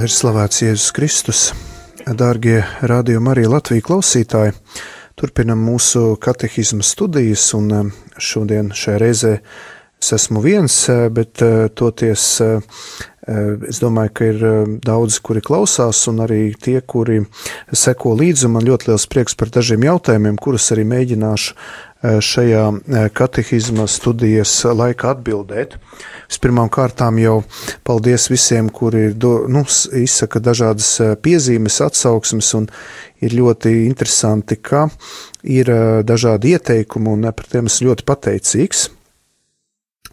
Lai ir slavēts Jēzus Kristus, dārgie Radio Marija Latvija klausītāji, turpinam mūsu katehisma studijas, un šodien šajā reizē es esmu viens, bet toties es domāju, ka ir daudzi, kuri klausās, un arī tie, kuri seko līdzi, un man ļoti liels prieks par dažiem jautājumiem, kurus arī mēģināšu šajā katehisma studijas laikā atbildēt. Vispirmām kārtām jau paldies visiem, kuri izsaka dažādas piezīmes, atsauksmes, un ir ļoti interesanti, ka ir dažādi ieteikumi, un par tiem esmu ļoti pateicīgs.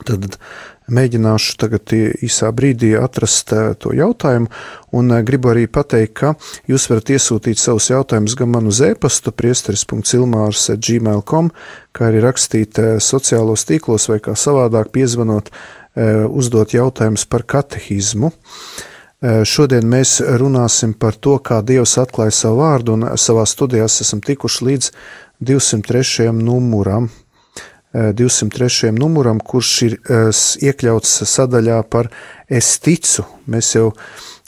Tad mēģināšu tagad īsā brīdī atrast to jautājumu, un gribu arī pateikt, ka jūs varat iesūtīt savus jautājumus gan man uz e-pastu priesteris.ilmārs@gmail.com, kā arī rakstīt sociālos tīklos vai kā savādāk piezvanot, uzdot jautājumus par katehismu. Šodien mēs runāsim par to, kā Dievs atklāja savu vārdu, un savā studijās esam tikuši līdz 203. numuram. 203. numuram, kurš ir iekļauts sadaļā par es ticu. Mēs jau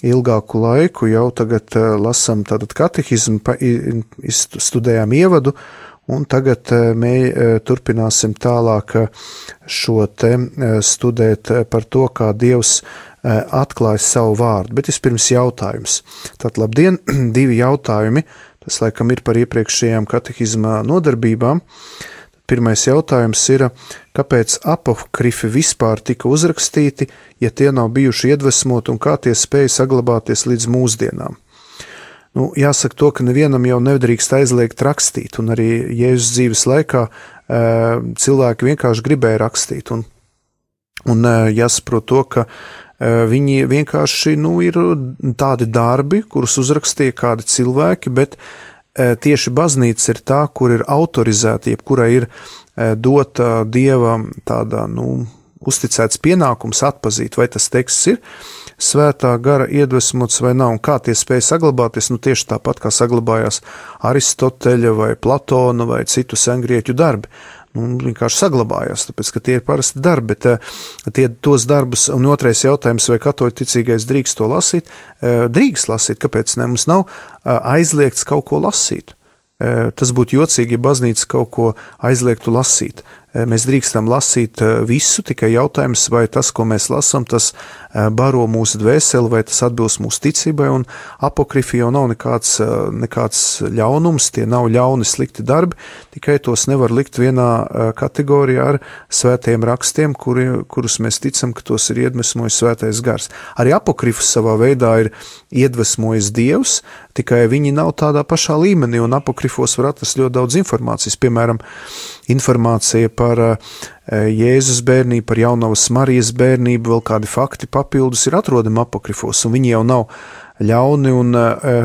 ilgāku laiku jau tagad lasam tātad katehismu, studējām ievadu, un tagad turpināsim tālāk šo te studēt par to, kā Dievs atklāja savu vārdu. Bet vispirms jautājums. Tātad labdien, 2 jautājumi, tas laikam ir par iepriekšējām katehisma nodarbībām. Pirmais jautājums ir, kāpēc apokrifi vispār tika uzrakstīti, ja tie nav bijuši iedvesmoti un kā tie spēja saglabāties līdz mūsdienām? Jāsaka to, ka nevienam jau nedrīkst aizliegt rakstīt, un arī Jēzus dzīves laikā cilvēki vienkārši gribēja rakstīt, un jāsaprot to, ka viņi vienkārši ir tādi darbi, kurus uzrakstīja kādi cilvēki, bet tieši baznīca ir tā, kur ir autorizēta, jebkurai ir dota Dieva tādā, uzticēts pienākums atpazīt, vai tas teksts ir svētā gara iedvesmots vai nav, un kā tie spēja saglabāties, tieši tāpat kā saglabājās Aristoteļa vai Platona vai citu sengrieķu darbi. Vienkārši saglabājās, tāpēc, ka tie ir parasti darbi, bet tos darbus, un otrais jautājums, vai katoļu ticīgais drīkst to lasīt? Drīkst lasīt, kāpēc ne? Mums nav aizliegts kaut ko lasīt. Tas būtu jocīgi, ja baznīca kaut ko aizliegtu lasīt. Mēs drīkstam lasīt visu, tikai jautājums, vai tas, ko mēs lasām, tas baro mūsu dvēseli, vai tas atbilst mūsu ticībai, un apokrifi jau nav nekāds ļaunums, tie nav ļauni slikti darbi, tikai tos nevar likt vienā kategorijā ar svētajiem rakstiem, kurus mēs ticam, ka tos ir iedvesmojis svētais gars. Arī apokrifus savā veidā ir iedvesmojis Dievs, tikai viņi nav tādā pašā līmenī, un apokrifos var atrast ļoti daudz informācijas, piemēram, informācija par Jēzus bērnību, par jaunavas Marijas bērnību, vēl kādi fakti papildus ir atrodami apokrifos, un viņi jau nav ļauni, un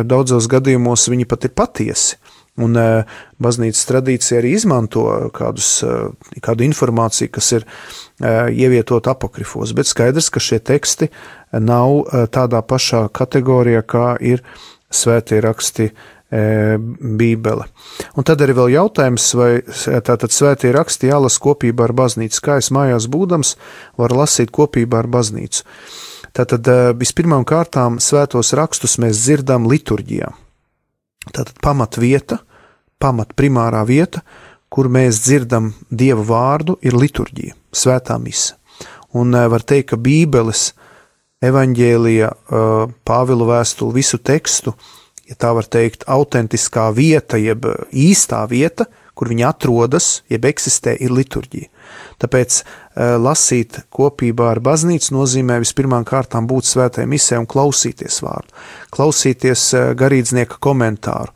daudzos gadījumos viņi pat ir patiesi. Un baznīcas tradīcija arī izmanto kādu informāciju, kas ir ievietot apokrifos, bet skaidrs, ka šie teksti nav tādā pašā kategorijā, kā ir svētie raksti Bībele. Un tad arī vēl jautājums, vai tātad svētie raksti jālas kopībā ar baznīcu, kā es mājās būdams varu lasīt kopībā ar baznīcu. Tātad vispirmām kārtām svētos rakstus mēs dzirdam liturģijā. Tātad primārā vieta, kur mēs dzirdam Dieva vārdu, ir liturģija, svētā mise. Un var teikt, ka Bībeles, evaņģēlija, Pāvila vēstuli, visu tekstu, ja tā var teikt, autentiskā vieta, jeb īstā vieta, kur viņi atrodas, jeb eksistē, ir liturģija. Tāpēc lasīt kopībā ar baznīcu nozīmē vispirmām kārtām būt svētai misē un klausīties vārdu, klausīties garīdznieka komentāru.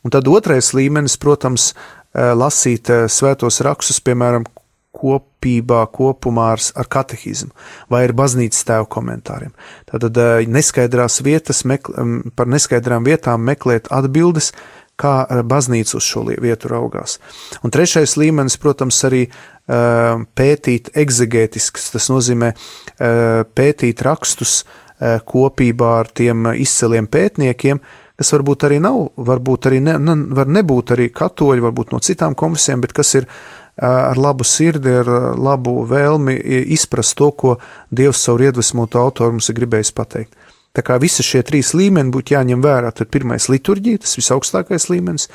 Un tad otrais līmenis, protams, lasīt svētos rakstus, piemēram, kopumā ar katehismu vai ar baznīcas tēvu komentāriem. Tātad neskaidrās vietas, par neskaidraām vietām meklēt atbildes, kā baznīca uz šo vietu raugās. Un trešais līmenis, protams, arī pētīt egzegētisks, tas nozīmē pētīt rakstus kopībā ar tiem izceliem pētniekiem, kas varbūt arī nav, varbūt arī var nebūt arī katoļi, varbūt no citām konfesijām, bet kas ir ar labu sirdi, ar labu vēlmi izprast to, ko Dievs caur iedvesmotu autoru mums ir gribējis pateikt. Tā kā visi šie 3 līmeni būtu jāņem vērā. Tad pirmais liturģija, tas visaugstākais līmenis,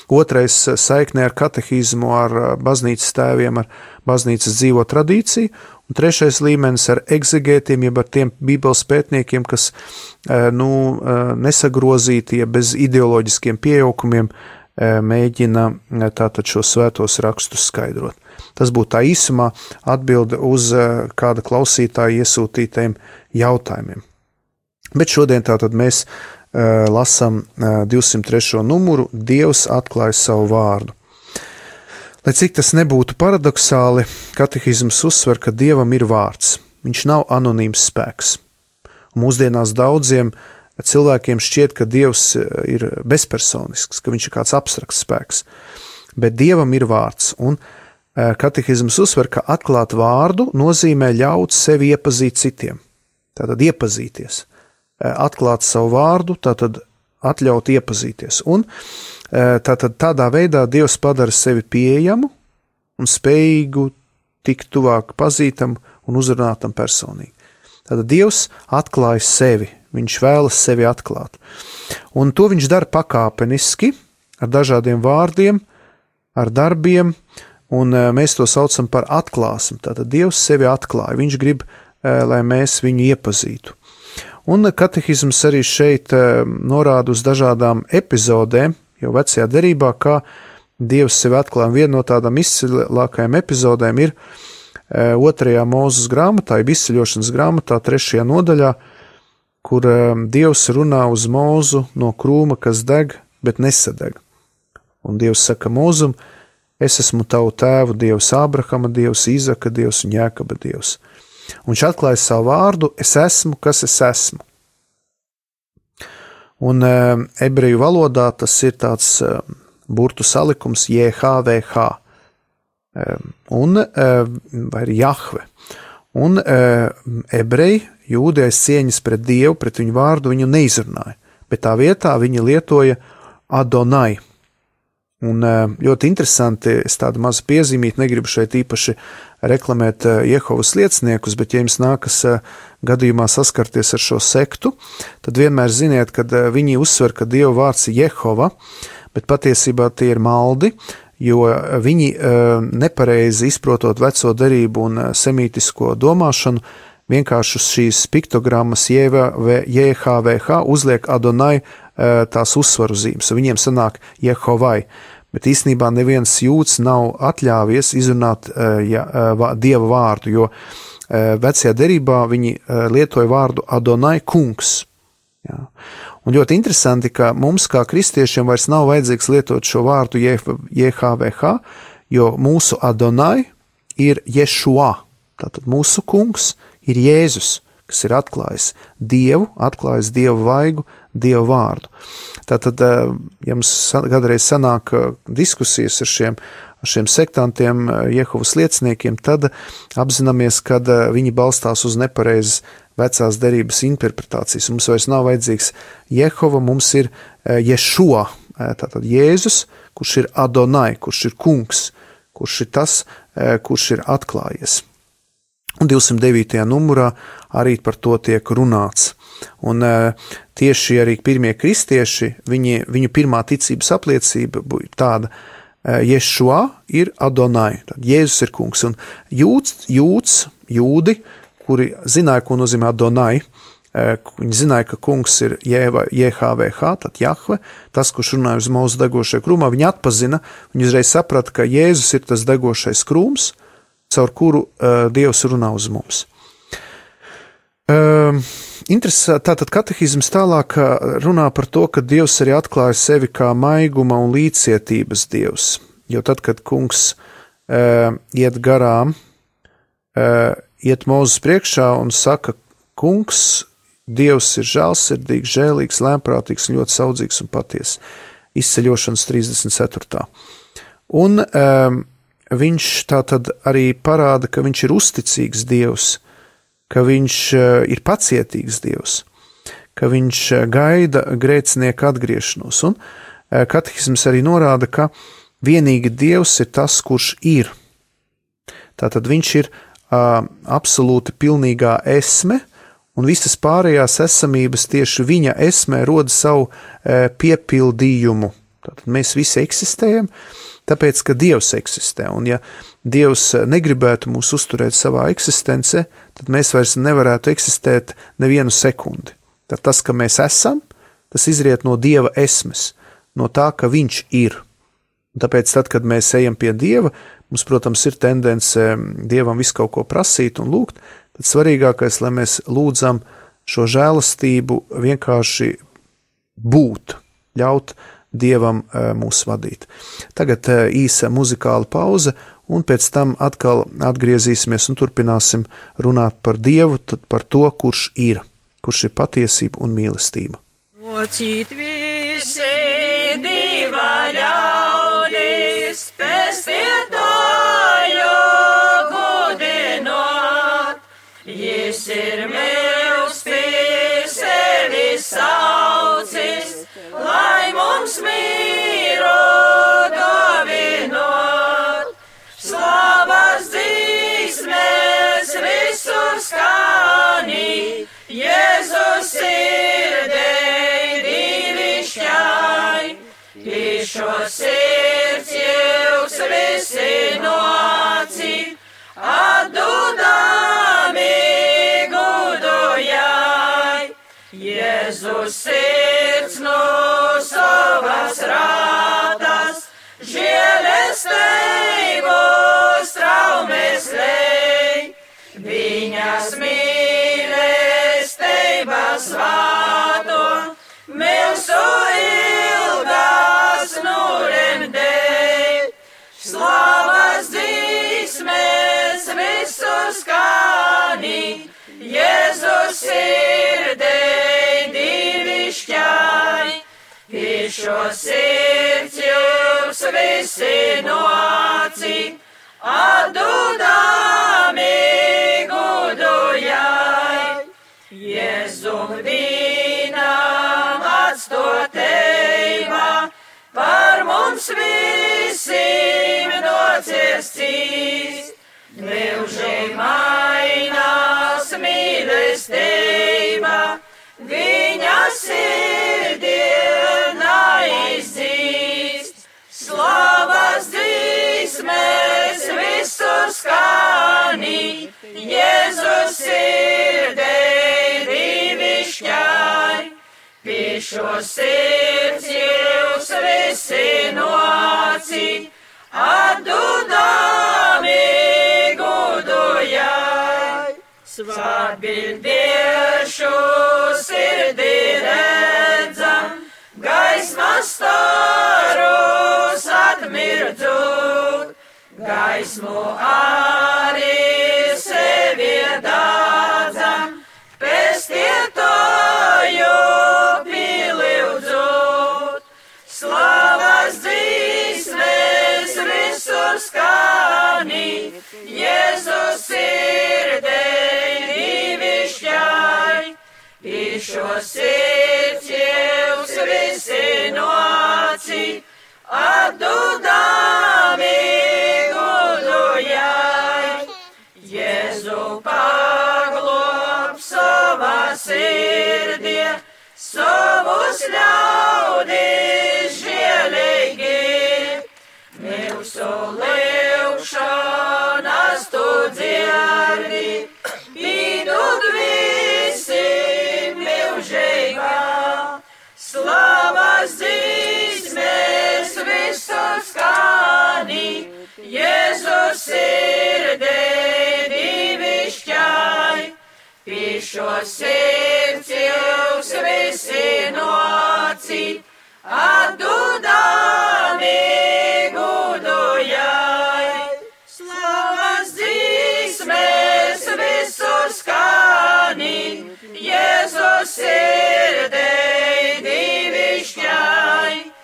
otrais saiknē ar katehismu, ar baznīcas tēviem, ar baznīcas dzīvo tradīciju, un trešais līmenis ar egzegētiem, jeb ar tiem bībeles pētniekiem, kas nesagrozīti, ja bez ideoloģiskiem pieaukumiem mēģina tātad šo svētos rakstus skaidrot. Tas būtu tā īsumā atbilde uz kāda klausītāja iesūtītajiem jautājumiem. Bet šodien tātad mēs lasām 203. numuru Dievs atklāja savu vārdu. Lai cik tas nebūtu paradoxāli, katehisms uzsver, ka Dievam ir vārds. Viņš nav anonīms spēks. Un mūsdienās daudziem cilvēkiem šķiet, ka Dievs ir bezpersonisks, ka viņš ir kāds abstrakts spēks. Bet Dievam ir vārds, un katehisms uzsver, ka atklāt vārdu nozīmē ļaut sevi iepazīt citiem. Tātad iepazīties. Atklāt savu vārdu, tātad atļaut iepazīties. Un tātad tādā veidā Dievs padara sevi pieejamu un spējīgu tikt tuvāk pazītam un uzrunātam personīgi. Tātad Dievs atklāja sevi, viņš vēlas sevi atklāt. Un to viņš dara pakāpeniski, ar dažādiem vārdiem, ar darbiem, un mēs to saucam par atklāsmi. Tātad Dievs sevi atklāja, viņš grib, lai mēs viņu iepazītu. Un katehisms arī šeit norāda uz dažādām epizodēm, jau vecajā derībā, kā Dievs sevi atklāja. Viena no tādām izcilākajām epizodēm ir 2. Mūzes grāmatā, jeb izceļošanas grāmatā, 3. nodaļā, kur Dievs runā uz Mūzu no krūma, kas deg, bet nesadeg. Un Dievs saka Mūzum, es esmu tavu tēvu Dievs, Ābrahama Dievs, Īzaka Dievs un Jākaba Dievs. Un viņš atklāja savu vārdu, es esmu, kas es esmu. Un ebreju valodā tas ir tāds burtu salikums JHVH, vai ir Jahve. Un ebreji, jūdi aiz cieņas pret Dievu, pret viņu vārdu, viņu neizrunāja, bet tā vietā viņi lietoja Adonai. Un ļoti interesanti, es tādu mazu piezīmīti, negribu šeit īpaši reklamēt Jehovas lieciniekus, bet ja jums nākas gadījumā saskarties ar šo sektu, tad vienmēr ziniet, kad viņi uzsver, ka Dieva vārds ir Jehova, bet patiesībā tie ir maldi, jo viņi nepareizi izprotot veco derību un semītisko domāšanu, vienkārši uz šīs piktogrammas JHVH uzliek Adonai tās uzsvaru zīmes, un viņiem sanāk Jehovai, bet īstenībā neviens jūds nav atļāvies izrunāt Dieva vārdu, jo vecajā derībā viņi lietoja vārdu Adonai kungs. Jā. Un ļoti interesanti, ka mums kā kristiešiem vairs nav vajadzīgs lietot šo vārdu JHVH, jo mūsu Adonai ir Ješua, tātad mūsu kungs ir Jēzus, kas ir atklājis Dievu, atklājis Dievu vaigu, Dievu vārdu. Tātad, ja mums kādreiz sanāk diskusijas ar šiem sektantiem, Jehovas lieciniekiem, tad apzināmies, ka viņi balstās uz nepareizas vecās derības interpretācijas. Mums vairs nav vajadzīgs Jehova, mums ir Ješua, tātad Jēzus, kurš ir Adonai, kurš ir kungs, kurš ir tas, kurš ir atklājies. Un 209. numurā arī par to tiek runāts. Un tieši arī pirmie kristieši, viņu pirmā ticības apliecība bija tāda, Ješua ir Adonai, tad Jēzus ir kungs. Un jūdi, kuri zināja, ko nozīmē Adonai, viņi zināja, ka kungs ir JHVH, tad Jahve, tas, kurš runāja uz Mūzu degošajā krūmā, viņi atpazina, viņi uzreiz saprata, ka Jēzus ir tas degošais krūms, caur kuru Dievs runā uz mums. Tātad katehisms tālāk runā par to, ka Dievs arī atklāja sevi kā maiguma un līdzcietības Dievs, jo tad, kad kungs iet garām, iet Mūzes priekšā un saka, kungs, Dievs ir žēlsirdīgs, žēlīgs, lēmprātīgs, ļoti saudzīgs un patiess. Izceļošanas 34. Un viņš tātad arī parāda, ka viņš ir uzticīgs Dievs, ka viņš ir pacietīgs Dievs, ka viņš gaida grēcinieku atgriešanos. Un katehisms arī norāda, ka vienīgi Dievs ir tas, kurš ir. Tātad viņš ir absolūti pilnīgā esme, un visas pārējās esamības tieši viņa esmē roda savu piepildījumu. Tātad mēs visi eksistējam, tāpēc, ka Dievs eksistē, un ja Dievs negribētu mūs uzturēt savā eksistencē, tad mēs vairs nevarētu eksistēt nevienu sekundi. Tad tas, ka mēs esam, tas izriet no Dieva esmes, no tā, ka viņš ir. Un tāpēc tad, kad mēs ejam pie Dieva, mums, protams, ir tendence Dievam visu kaut ko prasīt un lūgt, tad svarīgākais, lai mēs lūdzam šo žēlastību vienkārši būt, ļaut Dievam mūs vadīt. Tagad īsa muzikāla pauze, un pēc tam atkal atgriezīsimies un turpināsim runāt par Dievu, tad par to, kurš ir patiesība un mīlestība. Mocīt visi Dieva ļaudis, pestītāju gudinot, Jis ir mīls pie sevi saucis, lai mums mīru dovinot. Slavas dzīsmes visur skanī, Jēzus sirdei divišķai, Šo sirds jūs visi nocīt, atdodami gudojai. Jēzus sirds no savas rātas, žēlestību straumes lej, viņas mīlestības svāto, milzu ilgas nuremdēj. Slavas dzīsmes visur skanī, Jēzus sirdei divišķai. Šo sirds jūs visi nocīt, atdodami gudojai. Jēzum dīnam atstotībā, par mums visiem nociestīs. Mūžīgi mainās mīlestība, viņa sirdienā izdzīst. Slavas dzīsmes visur skanī, Jēzus sirdei divišķai. Šo sirds jūs visi nocīt, atdodami gudojai. Svētbildiešu sirdī redzam, gaismas starus atmirdzot, gaismu arī sevi dādzam, pestītāju piliudzot. Slavas dzīsmes visur skanī, Jēzus sirdei divišķai. Šo sirds jūs visi nocīt, atdodami gudojai. Jēzu paglob savā sirdī, savus ļaudis žēlīgi. Mūsu lūgšanas tu dzirdi, pīdod visiem mūžīgā. Slavas dzīsmes visur skanī, Jēzus sirdei divišķai. Šo sirds jūs visi nocīt, atdodami gudojai. Slavas dzīsmes visur skanī, Jēzus sirdei divišķai.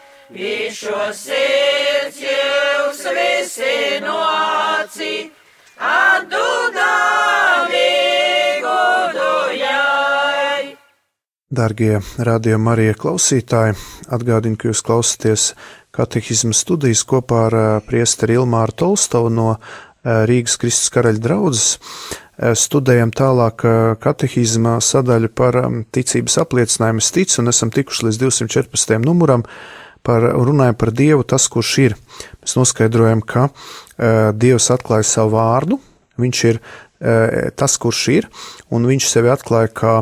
Šo sirds jūs visi nocīt, atdodami gudojai. Dargie Radio Marija klausītāji, atgādinu, ka jūs klausāties katehisma studijas kopā ar priesteri Ilmāru Tolstovu no Rīgas Kristus Karaļa draudzes, studējam tālāk katehizma sadaļu par ticības apliecinājumu. Es ticu, un esam tikuši līdz 214. numuram, runājam par Dievu, tas, kurš ir. Mēs noskaidrojam, ka Dievs atklāja savu vārdu, viņš ir tas, kurš ir, un viņš sevi atklāja kā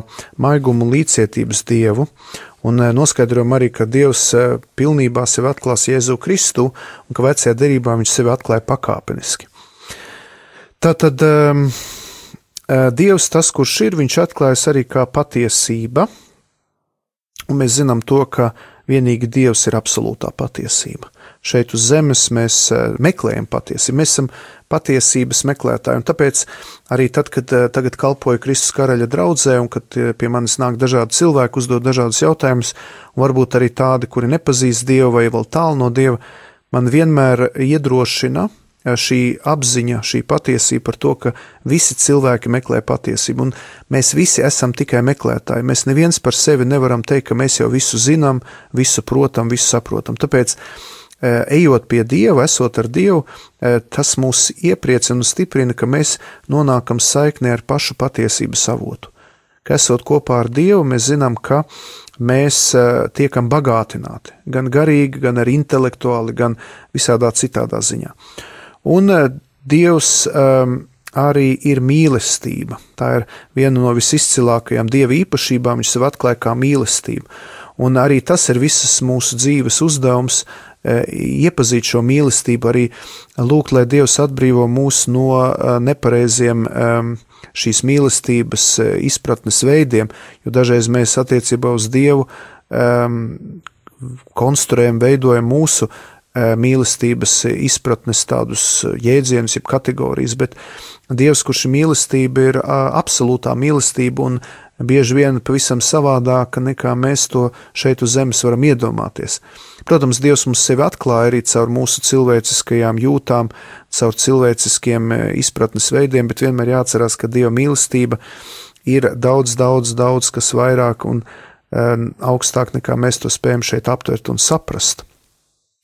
maigumu un līdzcietības Dievu, un noskaidrojam arī, ka Dievs pilnībā sevi atklās Jēzu Kristu, un ka vecajā derībā viņš sevi atklāja pakāpeniski. Tātad Dievs, tas, kurš ir, viņš atklājas arī kā patiesība, un mēs zinām to, ka vienīgi Dievs ir absolūtā patiesība. Šeit uz zemes mēs meklējam patiesību, mēs esam patiesības meklētāji, un tāpēc arī tad, kad tagad kalpoju Kristus Karaļa draudzē, un kad pie manis nāk dažādi cilvēki, uzdod dažādus jautājumus, un varbūt arī tādi, kuri nepazīst Dievu vai vēl tālu no Dieva, man vienmēr iedrošina šī apziņa, šī patiesība par to, ka visi cilvēki meklē patiesību, un mēs visi esam tikai meklētāji. Mēs neviens par sevi nevaram teikt, ka mēs jau visu zinām, visu protam, visu saprotam. Tāpēc, ejot pie Dieva, esot ar Dievu, tas mūs iepriecina un stiprina, ka mēs nonākam saiknē ar pašu patiesības avotu. Ka esot kopā ar Dievu, mēs zinām, ka mēs tiekam bagātināti, gan garīgi, gan arī intelektuāli, gan visādā citādā ziņā. Un Dievs arī ir mīlestība. Tā ir viena no visizcilākajām Dieva īpašībām, viņš sev atklāja kā mīlestību. Un arī tas ir visas mūsu dzīves uzdevums, iepazīt šo mīlestību, arī lūgt, lai Dievs atbrīvo mūs no nepareiziem šīs mīlestības izpratnes veidiem, jo dažreiz mēs attiecībā uz Dievu konstruējam, veidojam mūsu mīlestības izpratnes tādus jēdzienus, jeb kategorijas, bet Dievs, kurš ir mīlestība, ir absolūtā mīlestība un bieži vien pavisam savādāka nekā mēs to šeit uz zemes varam iedomāties. Protams, Dievs mums sevi atklāja arī caur mūsu cilvēciskajām jūtām, caur cilvēciskiem izpratnes veidiem, bet vienmēr jāatcerās, ka Dieva mīlestība ir daudz, kas vairāk un augstāk nekā mēs to spējam šeit aptvert un saprast.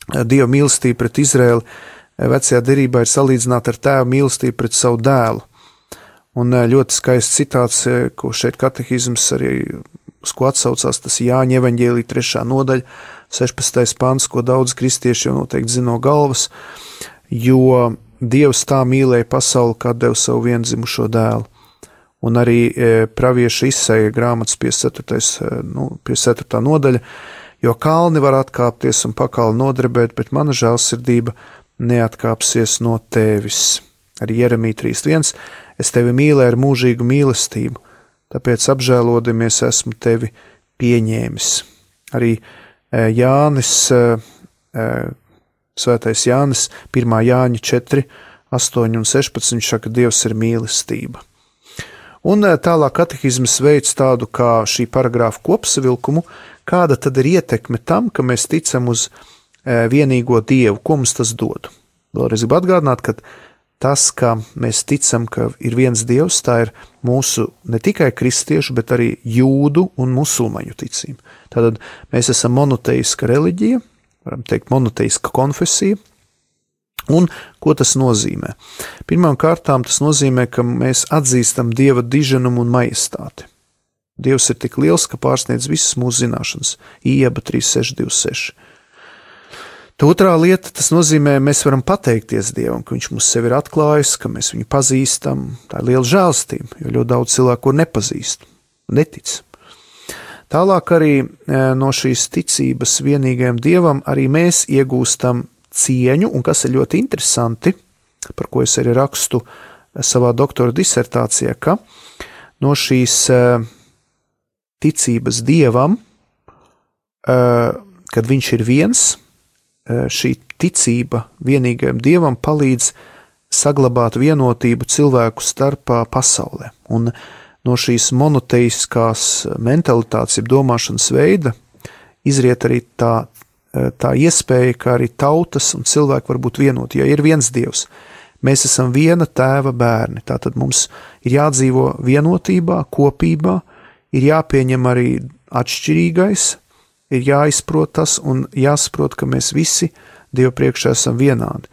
Dieva mīlestība pret Izraēlu vecajā derībā ir salīdzināta ar tēva mīlestību pret savu dēlu. Un ļoti skaists citāts, ko šeit katehizms arī, uz ko atsaucās, tas Jāņa evaņģēlija 3. nodaļa, 16. pants, ko daudz kristieši jau noteikti zina no galvas, jo Dievs tā mīlēja pasauli, kā deva savu viendzimušo dēlu. Un arī pravieša Isaija grāmatas 54. nodaļa, jo kalni var atkāpties un pakali nodrebēt, bet mana žēlsirdība neatkāpsies no tevis. Arī Jeremija 3.1. Es tevi mīlēju ar mūžīgu mīlestību, tāpēc apžēlodamies esmu tevi pieņēmis. Arī Jānis, svētais Jānis, 1. Jāņa 4, 8 un 16 saka, Dievs ir mīlestība. Un tālāk katehizmas veids tādu kā šī paragrāfa kopsavilkumu, kāda tad ir ietekme tam, ka mēs ticam uz vienīgo Dievu, ko mums tas dod. Vēlreiz gribu atgādināt, ka tas, ka mēs ticam, ka ir viens Dievs, tā ir mūsu ne tikai kristiešu, bet arī jūdu un musulmaņu ticība. Tātad mēs esam monoteiska reliģija, varam teikt monoteiska konfesija. Un ko tas nozīmē? Pirmām kārtām tas nozīmē, ka mēs atzīstam Dieva diženumu un majestāti. Dievs ir tik liels, ka pārsniedz visas mūsu zināšanas. Ieba 3.6.26. Otrā lieta, tas nozīmē, mēs varam pateikties Dievam, ka viņš mums sevi ir atklājis, ka mēs viņu pazīstam. Tā ir liela žēlstība, jo ļoti daudz cilvēku nepazīst, netic. Tālāk arī no šīs ticības vienīgajam Dievam arī mēs iegūstam cieņu, un kas ir ļoti interesanti, par ko es arī rakstu savā doktora disertācijā, ka no šīs ticības Dievam, kad viņš ir viens, šī ticība vienīgajam Dievam palīdz saglabāt vienotību cilvēku starpā pasaulē. Un no šīs monoteiskās mentalitātes, jeb domāšanas veida, izriet arī tā iespēja, ka arī tautas un cilvēki var būt vienoti, ja ir viens Dievs. Mēs esam viena tēva bērni, tātad mums ir jādzīvo vienotībā, kopībā, ir jāpieņem arī atšķirīgais, ir jāizprot tas un jāsaprot, ka mēs visi Dievu priekšā esam vienādi.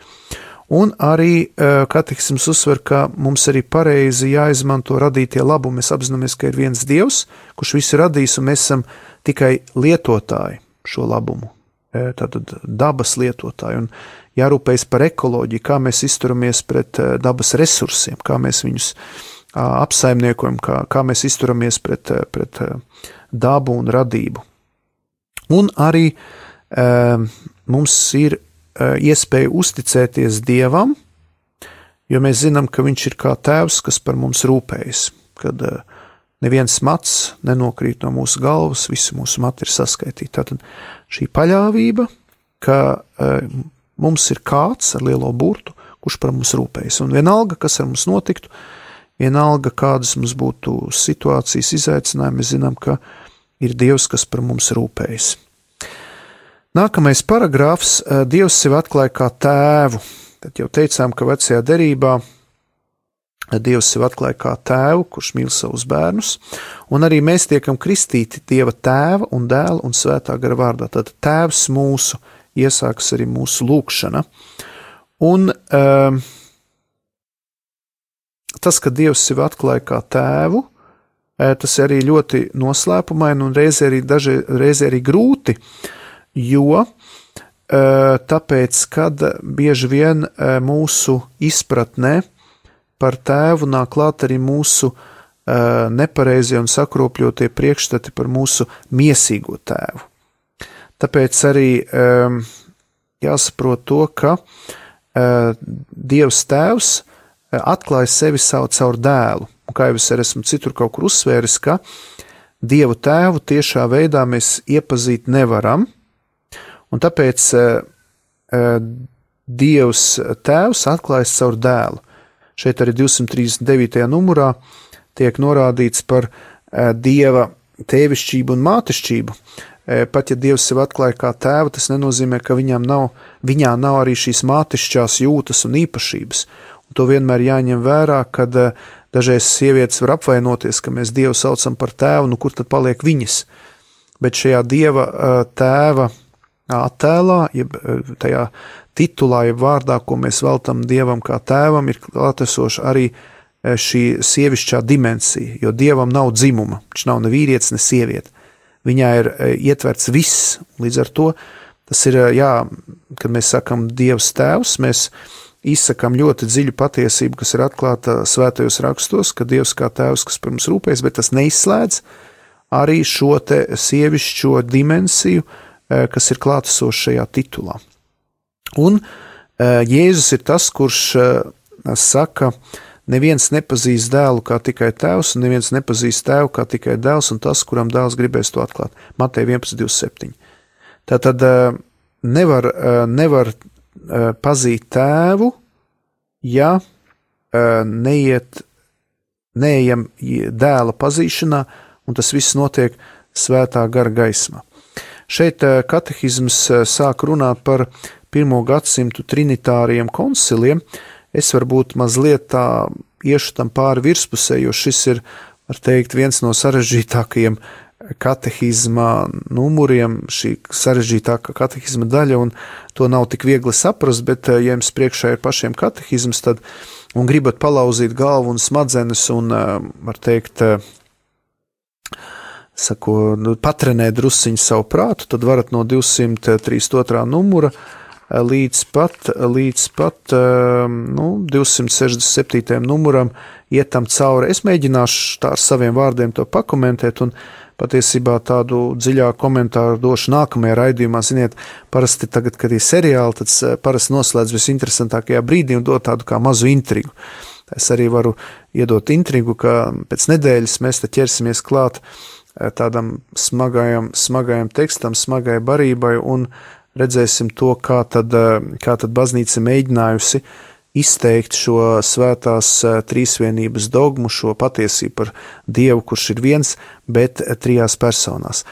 Un arī katehisms uzsver, ka mums arī pareizi jāizmanto radītie labumi. Mēs apzināmies, ka ir viens Dievs, kurš visu radījis, un mēs esam tikai lietotāji šo labumu. Tātad dabas lietotāji, un jārūpējas par ekoloģiju, kā mēs izturamies pret dabas resursiem, kā mēs viņus apsaimniekojam, kā mēs izturamies pret dabu un radību. Un arī mums ir iespēja uzticēties Dievam, jo mēs zinām, ka viņš ir kā tēvs, kas par mums rūpējas, kad neviens mats nenokrīt no mūsu galvas, visi mūsu mati ir saskaitīti. Tātad šī paļāvība, ka mums ir kāds ar lielo burtu, kurš par mums rūpējas. Un vienalga, kas ar mums notiktu, vienalga, kādas mums būtu situācijas izaicinājumi, mēs zinām, ka ir Dievs, kas par mums rūpējas. Nākamais paragrāfs – Dievs sevi atklāja kā tēvu. Tad jau teicām, ka vecajā derībā Dievs sevi atklāja kā tēvu, kurš mīl savus bērnus, un arī mēs tiekam kristīti Dieva tēva un dēla un svētā gara vārdā. Tad tēvs mūsu iesāks arī mūsu lūgšana. Un tas, ka Dievs sevi atklāja kā tēvu, tas arī ļoti noslēpumaini un reizē arī grūti, jo tāpēc, kad bieži vien mūsu izpratnē par tēvu nāk klāt arī mūsu nepareizie un sakropļotie priekšstati par mūsu miesīgo tēvu. Tāpēc arī jāsaprot to, ka Dievs tēvs atklāja sevi caur dēlu. Un kā jau es arī esmu citur kaut kur uzsvēris, ka Dievu tēvu tiešā veidā mēs iepazīt nevaram, un tāpēc Dievs tēvs atklājas caur dēlu. Šeit arī 239. numurā tiek norādīts par Dieva tēvišķību un mātešķību. Pat ja Dievs sev atklāja kā tēvu, tas nenozīmē, ka viņā nav arī šīs mātešķās jūtas un īpašības. Un to vienmēr jāņem vērā, kad dažreiz sievietes var apvainoties, ka mēs Dievu saucam par tēvu, nu kur tad paliek viņas? Bet šajā Dieva tēva attēlā, jeb tajā titulā, jeb vārdā, ko mēs veltam Dievam kā tēvam, ir klātesoša arī šī sievišķā dimensija, jo Dievam nav dzimuma, viņš nav ne vīrietis, ne sieviete. Viņā ir ietverts viss, līdz ar to tas ir, kad mēs sakam Dievs tēvs, mēs izsakam ļoti dziļu patiesību, kas ir atklāta svētajos rakstos, ka Dievs kā tēvs, kas par mums rūpējas, bet tas neizslēdz arī šo te sievišķo dimensiju, kas ir klātesoša šajā titulā. Un Jēzus ir tas, kurš saka, neviens nepazīst dēlu kā tikai tēvs, un neviens nepazīst tēvu kā tikai dēls, un tas, kuram dēls gribēs to atklāt. Mateja 11:27. Tātad nevar pazīt tēvu, ja neejam dēla pazīšanā, un tas viss notiek svētā gara gaismā. Šeit katehisms sāk runāt par 1. gadsimtu trinitāriem konciliem. Es varbūt mazliet tā iešu tam pāri virspusē, jo šis ir, var teikt, viens no sarežģītākajiem katehizma numuriem, šī sarežģītākā katehizma daļa, un to nav tik viegli saprast, bet ja jums priekšā ir pašiem katehizms, tad, un gribat palauzīt galvu un smadzenes un, var teikt, patrenēt drusciņu savu prātu, tad varat no 232. numura līdz pat 267. numuram iet tam cauri. Es mēģināšu tā ar saviem vārdiem to pakomentēt, un patiesībā tādu dziļāku komentāru došu nākamajā raidījumā. Ziniet, parasti tagad, kad ir seriāli, tad parasti noslēdz visinteresantākajā brīdī un dod tādu kā mazu intrigu. Es arī varu iedot intrigu, ka pēc nedēļas mēs te ķersimies klāt tādam smagajam tekstam, smagai barībai, un redzēsim to, kā tad baznīca mēģinājusi izteikt šo svētās trīsvienības dogmu, šo patiesību par Dievu, kurš ir viens, bet trijās personās.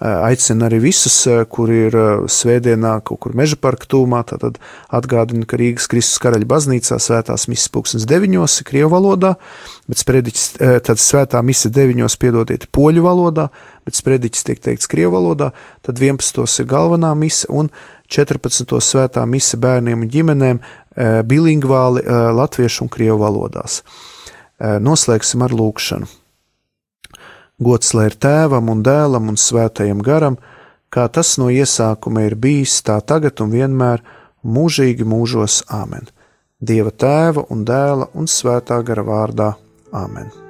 Aicinu arī visus, kuri ir svētdienā kaut kur Meža parka tūmā, tad atgādinu, ka Rīgas Kristus Karaļa baznīcā svētās misas 9:00 krievu valodā, bet sprediķis, tad svētā mise 9:00, piedodiet, poļu valodā, bet sprediķis tiek teikts krievu valodā, tad 11:00 ir galvenā mise un 14:00 svētā mise bērniem un ģimenēm bilingvāli latviešu un krievu valodās. Noslēgsim ar lūkšanu. Gods lai ir Tēvam un Dēlam un Svētajam garam, kā tas no iesākuma ir bijis, tā tagad un vienmēr, mūžīgi mūžos. Āmen. Dieva Tēva un Dēla un Svētā gara vārdā. Āmen.